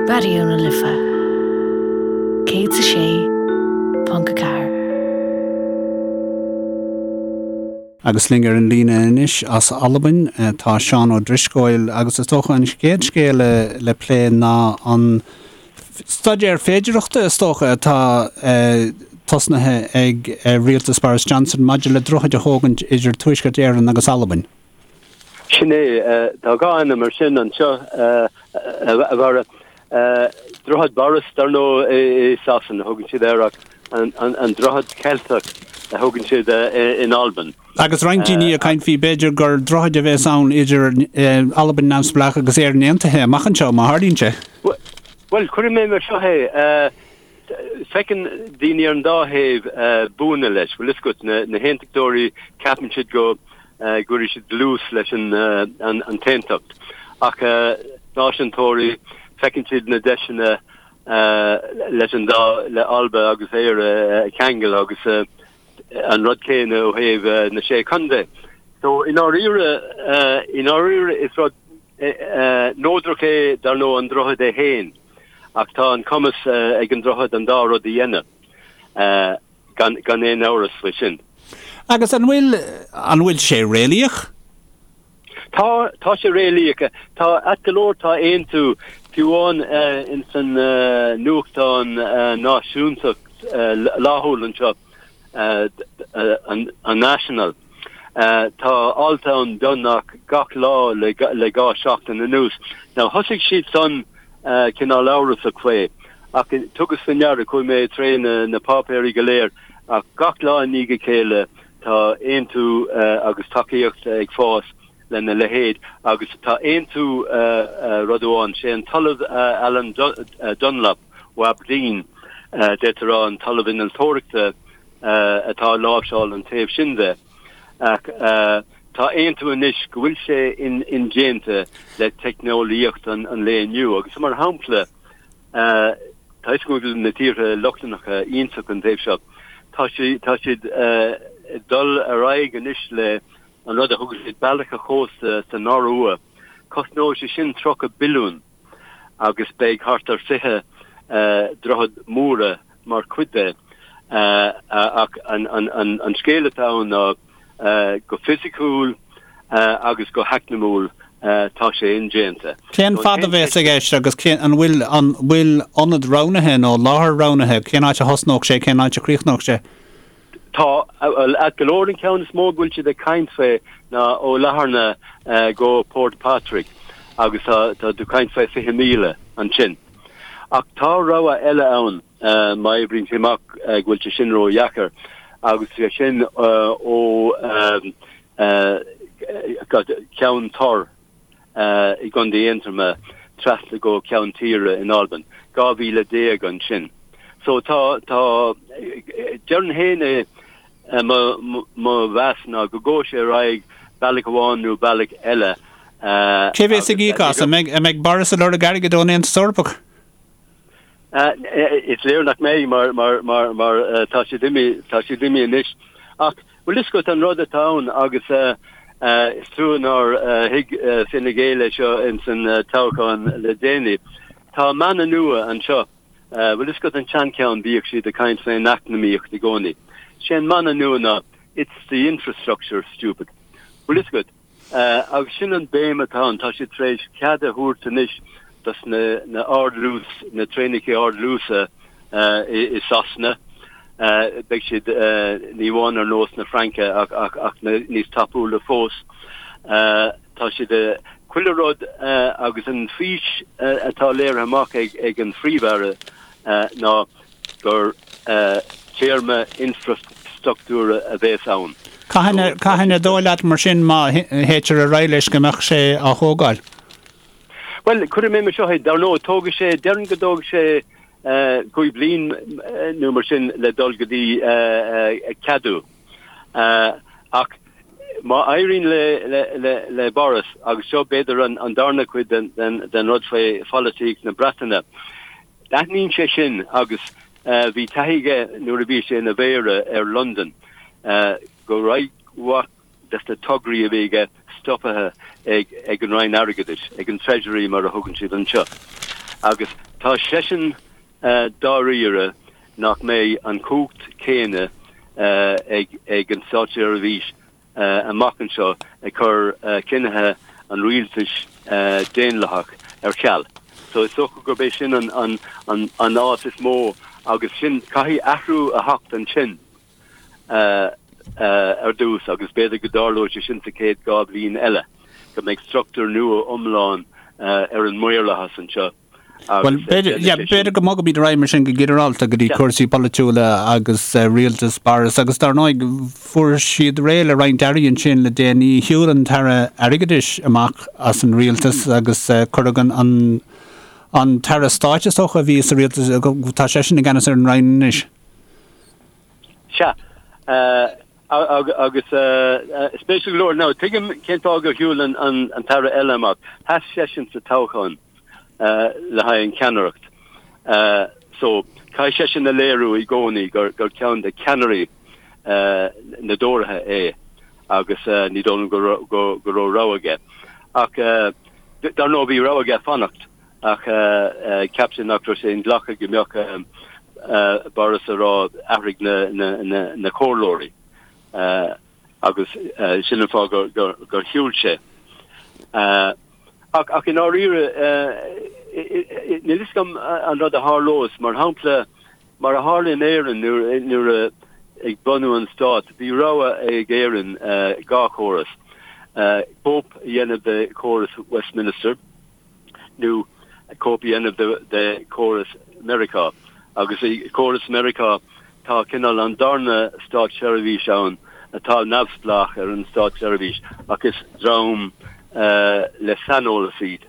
Raidió na Life 106.4. Agus linn ar an líne anois as Albain tá Seán Ó Drisceoil agus is dócha an chéad scéal le plé ná an staidéar féidearthachta is dócha atá tosnaithe ag rialtas Boris Johnson maidir le droichead a thógaint idir Tuaisceart Éireann agus Albain. Sin é. Tá dhá ainm ar sin anseo, a Bharra. Droichead Boris, dar ndóigh, i Sasana a thugann siad air ach an Droichead Ceilteach a thugann siad in Albain. Agus roinnt daoine ag caint faoi b'fhéidir gur droichead a bheas ann idir Albain neamhspleách agus Éirinn aontaithe amach anseo, má tharlaíonn sé. Bhuel, cuirfidh mé mar seo é. Feiceann daoine ar an dá thaobh buanna leis. Bhfuil fhios agat, na haontachtóirí, ceapann siad go gcuirfidh siad dlús leis an t-aontacht. Ach náisiúntóirí, feiceann siad na deiseanna leis an dá, le Alba agus Éire a cheangal agus an rud céanna ó thaobh na Sé Chontae. So, i ndáiríre, i ndáiríre is rud neodrach é, dar ndóigh, an droichead é féin. Ach tá an cumas ag an droichead an dá rud a dhéanamh, gan aon amhras faoi sin. Agus an bhfuil, an bhfuil sé réalaíoch? Tá, tá sé réalaíoch. Tá, ait go leor, tá aontú, fiú amháin ins an nuachtán náisiúntach laethúil anseo, an National. Tá alt ann beagnach gach lá le dhá seachtain anuas. Now thosaigh siad san cineál amhrasach faoi ach tugas faoi ndeara, chuaigh mé tré na páipéirí go léir ach gach lá i ndiaidh a chéile tá aontú agus tacaíocht ag fás lena leithéid agus tá aontú rud amháin, sé an tOllamh Alan Dunlop ó Aberdeen, d'fhéadfá a rá an tOllamh Innealtóireachta atá ag láimhseáil an taobh sin de ach tá aontú anois go bhfuil sé indéanta le teicneolaíocht an lae inniu agus mar shampla tá fhios agam go bhfuil na tíortha Lochlannacha iontach an taobh seo, tá siad ag dul ar aghaidh anois le an rud a thugann siad bealach an chósta san Iorua, cosnóidh sé sin 30 billiún agus beidh thart ar 20 droichead móra mar chuid de. Ach an scéal atá ann ná go fisiciúil agus go heacnamúil tá sé indéanta. Cén fad a bheas i gceist agus cén, an bhfuil, an bhfuil ionad roghnaithe nó láthair roghnaithe, cén áit a thosnódh sé, cén áit a chríochnódh sé? Tá, bhuel, ait go leor an ceann is mó go bhfuil siad ag caint faoi ná ó Latharna go Port Patrick agus tá tá tú caint faoi 20 míle ansin. Ach tá rogha eile ann má oibríonn sé amach go bhfuil sé sin ródheacair agus sé sin ó Ceann Tor i gContae Aontroma trasna go Ceann Tíre in Albain, 12 mhíle ansin. So tá, tá, déarfainn féin é, mo, mo mheas ná go gabhfaidh sé ar aghaidh bealach amháin nó bealach eile. Cé bhéas ag íoc as? An mbeidh, an mbeidh Boris ag lorg airgid ón Aontas Eorpach? Is léir nach mbeidh mar, mar, mar, mar tá siad imithe, tá siad imithe anois. Ach Bhuel fhios agat an rud atá ann agus is trua nár thuig Fine Gael é seo ins an toghchán le déanaí. Tá mana nua anseo. Bhuel fhios agat an tseancheann bhíodh siad ag caint faoin eacnamaíocht i gcónaí. Sé an mana nua ná 'It's the infrastructure, stupid'. Bhuel fhios agat. Agus sin an béim atá ann. Tá siad tar éis cead a thabhairt anois dos na ardluas, na traenacha ardluasa i Sasana. Beidh siad ní amháin ar nós na Fraince ach níos tapúla fós. Tá siad chuile rud agus an fís atá léirithe amach ag an Phríomh-Aire ná gur téarma infreastruchtúra a bhéas ann. Cathain ar dóigh leat mar sin má théitear ar aghaidh leis go mbeadh sé á thógáil? Bhuel, cuirfidh mé mar seo é, dar ndóigh, tógfaidh sé, déarfainn go dtógfaidh sé cúig bliain nó mar sin le dul go dtí ceadú. Ach má éiríonn le Boris, agus seo b'fhéidir an darna cuid den rud faoi pholaitíocht na Breataine, Aithníonn sé sin agus bhí taithí aige nuair a bhí sé ina mhéara ar Londain go raibh roinnt mhaith des na tograí a bhí aige stoptha ag an Roinn Airgeadais, ag an Treasury mar a thugann siad anseo. Agus tá. Tá seisean dáiríre nach mbeidh an chumhacht chéanna ag an státseirbhís amach anseo ag cur cinnithe an rialtais daonlathach ar ceal. So is dócha gurb é sin an áit is mó agus sin, caithfidh athrú a theacht ansin ar dtús agus b'fhéidir go dtarlóidh sé sin sa chéad 2 bhliain eile, go mbeidh struchtúr nua iomlán ar an maorlathas anseo. Bhuel, b'fhéidir go mbogfaimid ar aghaidh mar sin go ginearálta go dtí cúrsaí polaitiúla agus rialtas Boris agus dar ndóigh fuair siad réidh le roinnt airí ansin le déanaí. Shiúil an tAire Airgeadais amach as an rialtas agus cuireadh an an tAire Stáit is dócha a bhí sa rialtas, tá seisean i gceannas ar an Roinn anois. Sea. Agus spéisiúil go leor, now tuigim cén fáth gur shiúil an tAire eile amach. Sheas seisean sa toghchán le haghaidh an cheannaireacht. So, caithfidh seisean a léiriú i gcónaí gur ceann de cheannairí na dTóraithe é agus ní dóigh liom go raibh rogha aige. Ach dar ndóigh bhí rogha aige fanacht ach cheap sé nach raibh sé inghlactha go mbeadh Boris a rá athraigh na comhairleoirí agus sin an fáth gur shiúil sé. Ach i ndáiríre, níl fhios agam an rud a tharlós. Mar shampla, mar a tharla in Éirinn nuair a ag bunú an stáit, bhí rogha ag Éirinn 2 chóras, cóip a dhéanamh de chóras Westminster nó cóip a dhéanamh de chóras Meiriceá. Agus i gcóras Meiriceá tá cineál an darna státseirbhís ann atá neamhspleách ar an státseirbhís ach is dream le saineolas iad.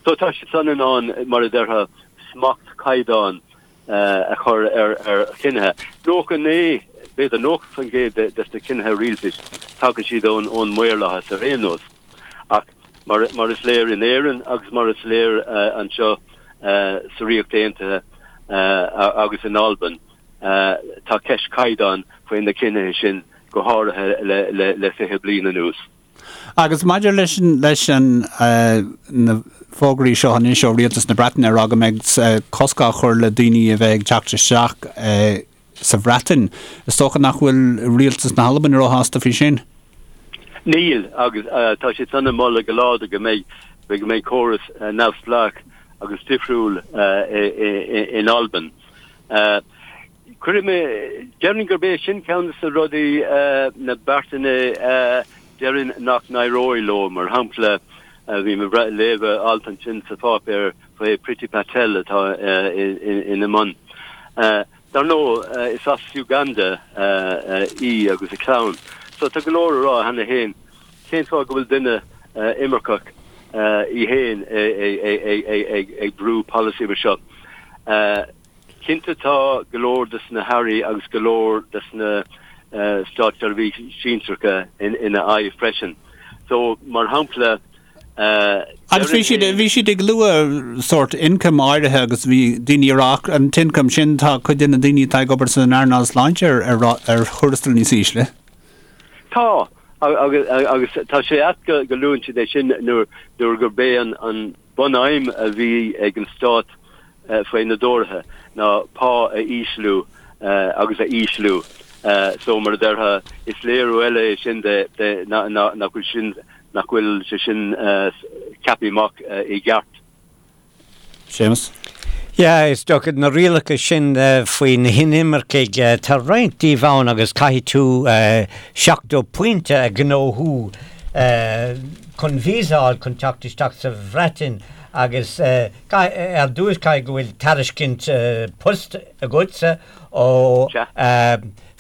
So tá siad san in ann, mar a déarfá, smacht caighdeán a chur ar chinnithe. 99, b'fhéidir 90% de na cinnithe rialtais, tagann siad ón maorlathas ar aon nós. Ach mar is léir in Éirinn agus mar is léir anseo sa Ríocht Aontaithe agus in Albain, tá ceist caighdeáin faoi na cinnithe sin, go háirithe le 20 bliain anuas. Agus maidir leis leis an na fógraí seo anois ó Rialtas na Breataine ag rá go mbeidh cosc á chur le daoine a bheith ag teacht isteach sa Bhreatain, is dócha nach bhfuil Rialtas na hAlban róshásta faoi sin? Níl, agus tá siad san ag moladh go láidir go mbeidh go mbeidh córas neamhspleách agus difriúil in Albain. Cuirfidh mé, déarfainn gurb é sin ceann de na rudaí, na beartanna déarfainn nach n-éireoidh leo. Mar shampla, bhí mé ag léamh alt ansin sa pháipéar faoi Priti Patel atá ina mbun. Dar ndóigh, is as Uganda í agus a clann, so tá go leor a rá cheana féin cén fáth go bhfuil duine imirceach í féin ag brú polasaí mar seo. Cinnte tá go leor des na hairí agus go leor des na státseirbhísigh sinsearacha ina aghaidh freisin. So, mar shampla, Agus bhí siad, bhí siad ag lua sórt income áirithe agus bhí daoine ag rá ach an t-income sin tá cuid de na daoine atá ag obair san earnáil sláinte ar, ar, ar thuarastal níos ísle. Tá, agus, agus tá sé ait go, go luann siad é sin nuair, nuair gurb é an, an bunaidhm a bhí ag an stát faoi na dTóraithe ná pá a ísliú agus a ísliú. So, mar a déarfá, is léiriú eile é sin de nach bhfuil sin, nach bhfuil sé sin ceaptha amach i gceart. Séamus. Yeah, is dócha na rialacha sin faoi na hinimircigh, tá roinnt díobh ann agus caithfidh tú 70 pointe a ghnóthú chun visa a fháil chun teacht isteach sa Bhreatain agus ar dtús caithfidh go bhfuil tairiscint poist agatsa ó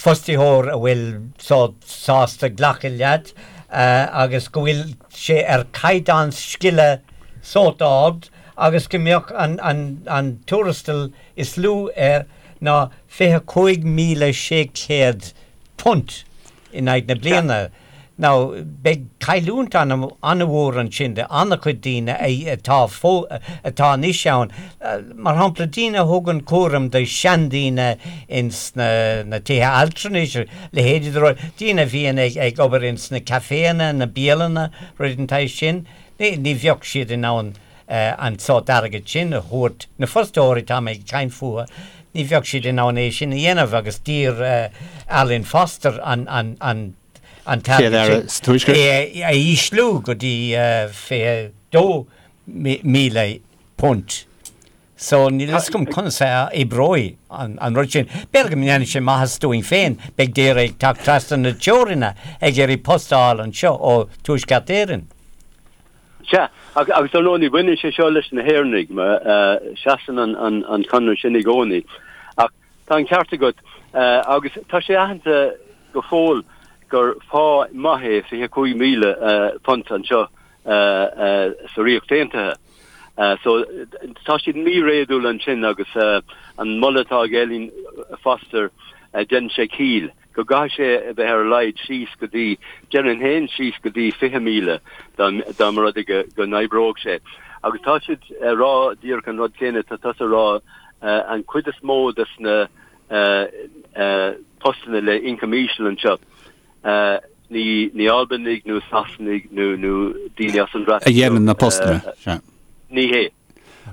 fostaitheoir a bhfuil sásta glacadh leat agus go bhfuil sé ar chaighdeán scile sórt ard agus go mbeadh an tuarastal is lú air ná £25,600 in aghaidh na bliana. Now, beidh cailliúint an-mhór ansin do an-chuid daoine atá atá anois ann. Mar shampla, daoine a thugann cúram do sheandaoine ins na tithe altranais, leithéidí de rudaí, daoine a bhíonn ag obair ins na caiféanna, na bialanna, rudaí den tsaghas sin, ní bheadh siad in ann. an sórt airgid sin a thabhairt, na fostóirí atá mé ag caint fúthu, ní bheadh siad in ann é sin a dhéanamh agus d'iarr Arlene Foster an an an t-airgead sin a ísliú go dtí £22,000. So níl a fhios agam conas a oibreoidh an rud sin. B'fhéidir go ndéanfaidh sé maitheas dúinn féin, beidh daoine ag teacht trasna na teoranna ag iarraidh post a fháil anseo ó Tuaisceart Éireann. Sea, agus dar ndóigh ní bhaineann sé seo leis na hÉireannaigh, mar seasann an conradh sin i gcónaí. Ach tá an ceart agat, agus tá sé aitheanta go fóill gur phá maith é £25,000 anseo sa Ríocht Aontaithe. So tá siad míréadúil ansin agus an moladh atá ag Arlene Foster, déanann sé ciall go gcaithfidh sé a bheith ar a laghad síos go dtí, déarfainn féin síos go dtí 20,000 dá mba rud é go n-oibreodh sé. Agus tá siad ag rá díreach an rud céanna atá tusa a rá, an chuid is mó des na postanna le ioncam íseal anseo, Ní ní Albanaigh nó Sasanaigh nó nó daoine as an Bhreatain. A dhéanann na postanna, sea. Ní hé.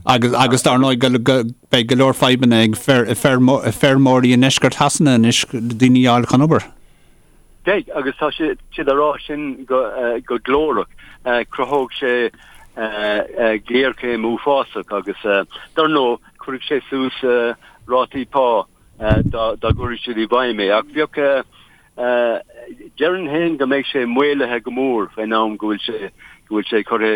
Agus agus dar ndóigh go go beidh go leor fadhbanna ag feir feirmeoirí i ndeisceart Shasana anois daoine a fháil chun obair. Beidh, agus tá siad siad á rá sin go go glórach. Cruthóidh sé géarchéim uafásach agus dar ndóigh cuirfidh sé suas rátaí pá dá dá gcuirfidh siad i bhfeidhm é. Ach bheadh Déarfainn féin go mbeidh sé maolaithe go mór faoin am go bhfuil sé go bhfuil sé curtha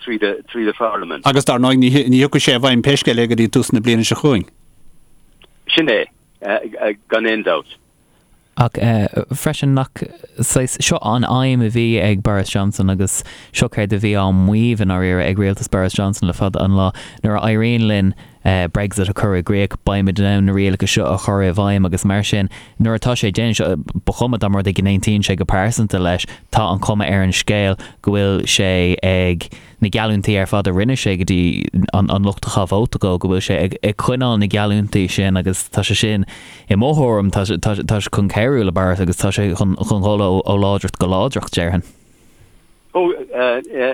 tríd tríd an pharlaimint. Agus dar ndóigh ní ní thiocfaidh sé i bhfeidhm pé scéal é go dtí tús na bliana seo chugainn. Sin é, gan aon dabht. Ach freisin nach saghas, seo an aidhm a bhí ag Boris Johnson agus seo céard a bhí á maíomh i ndáiríre ag rialtas Boris Johnson le fada an lá, nuair a éiríonn linn Brexit a chur i gcrích, beimid in ann na rialacha seo a chur i bhfeidhm agus mar sin, nuair atá sé déanta, ba chuma dá mba rud é go n-aontaíonn sé go pearsanta leis, tá an chuma ar an scéal go bhfuil sé ag na geallúintí ar fad a rinne sé go dtí an lucht a chaith vóta dó, go bhfuil sé ag coinneáil na geallúintí sin agus tá sé sin, i mo thuairim, tá sé chun cabhrú le Boris agus tá sé chun dhul ó láidreacht go láidreacht, déarfainn. Ó,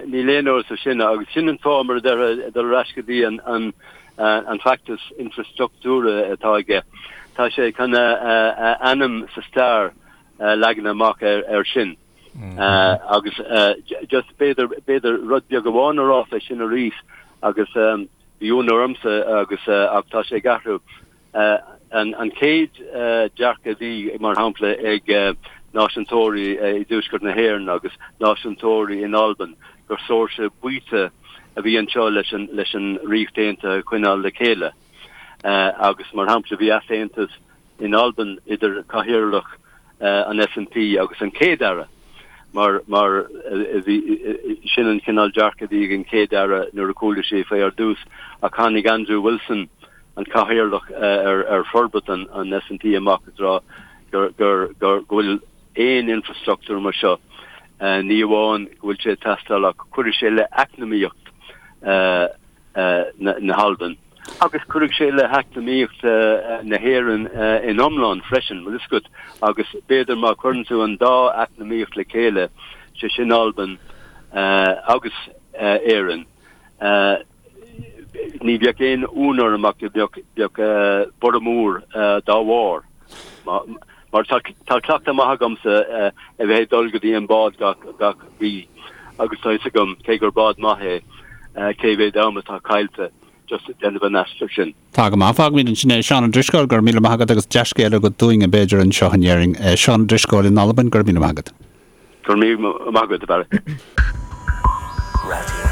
níl aon amhras faoi sin agus sin an fáth, mar a déarfá, dul ar ais go dtí an feachtas infreastruchtúra atá aige. Tá sé chun a ainm sa stair a leagan amach air sin. Agus just b'fhéidir, b'fhéidir rud beag amháin a rá fé sin arís agus bhí ionadh ormsa agus ach tá sé ag athrú. An chéad dearcadh a bhí, mar shampla, ag náisiúntóirí i dTuaisceart na hÉireann agus náisiúntóirí in Albain gur saoirse baoite a bhí anseo leis an Ríocht Aontaithe a choinneáil le chéile. Agus, mar shampla, bhí easaontas in Albain idir cathaoirleach an SNP agus an Chéad-Aire mar mar bhí sin an cineál dearcadh a bhí ag an Chéad-Aire nuair a chuala sé faoi ar dtús ach tháinig Andrew Wilson, an cathaoirleach ar forbairt an SNP amach ag rá gur gur gur go bhfuil aon infrastruchtúr mar seo ní amháin go bhfuil sé ag teastáil ach cuirfidh sé le eacnamaíocht na hAlban. Agus cuirfidh sé le heacnamaíocht na hÉireann in iomlán freisin, bhfuil fhios agat, agus b'fhéidir má chuireann tú an dá eacnamaíocht le chéile, sé sin Albain agus Éirinn, ní bheadh aon ionadh orm ach go mbeadh borradh mór dá bharr. Mar tá cleachtadh maith agamsa a bheith ag dul go dtí an bád gach mí agus tá fhios agam, cé gur bád maith é, cé mhéad am atá caillte just ag déanamh an aistir sin. Tá go maith. Fágfaimid ansin é. Seán Ó Drisceoil, go raibh míle maith agat agus dea-scéala agat dúinn, b'fhéidir, anseo in Éirinn. Seán Ó Drisceoil in Albain, go raibh míle maith agat. Go raibh míle maith agat, a Bharry. Raidió.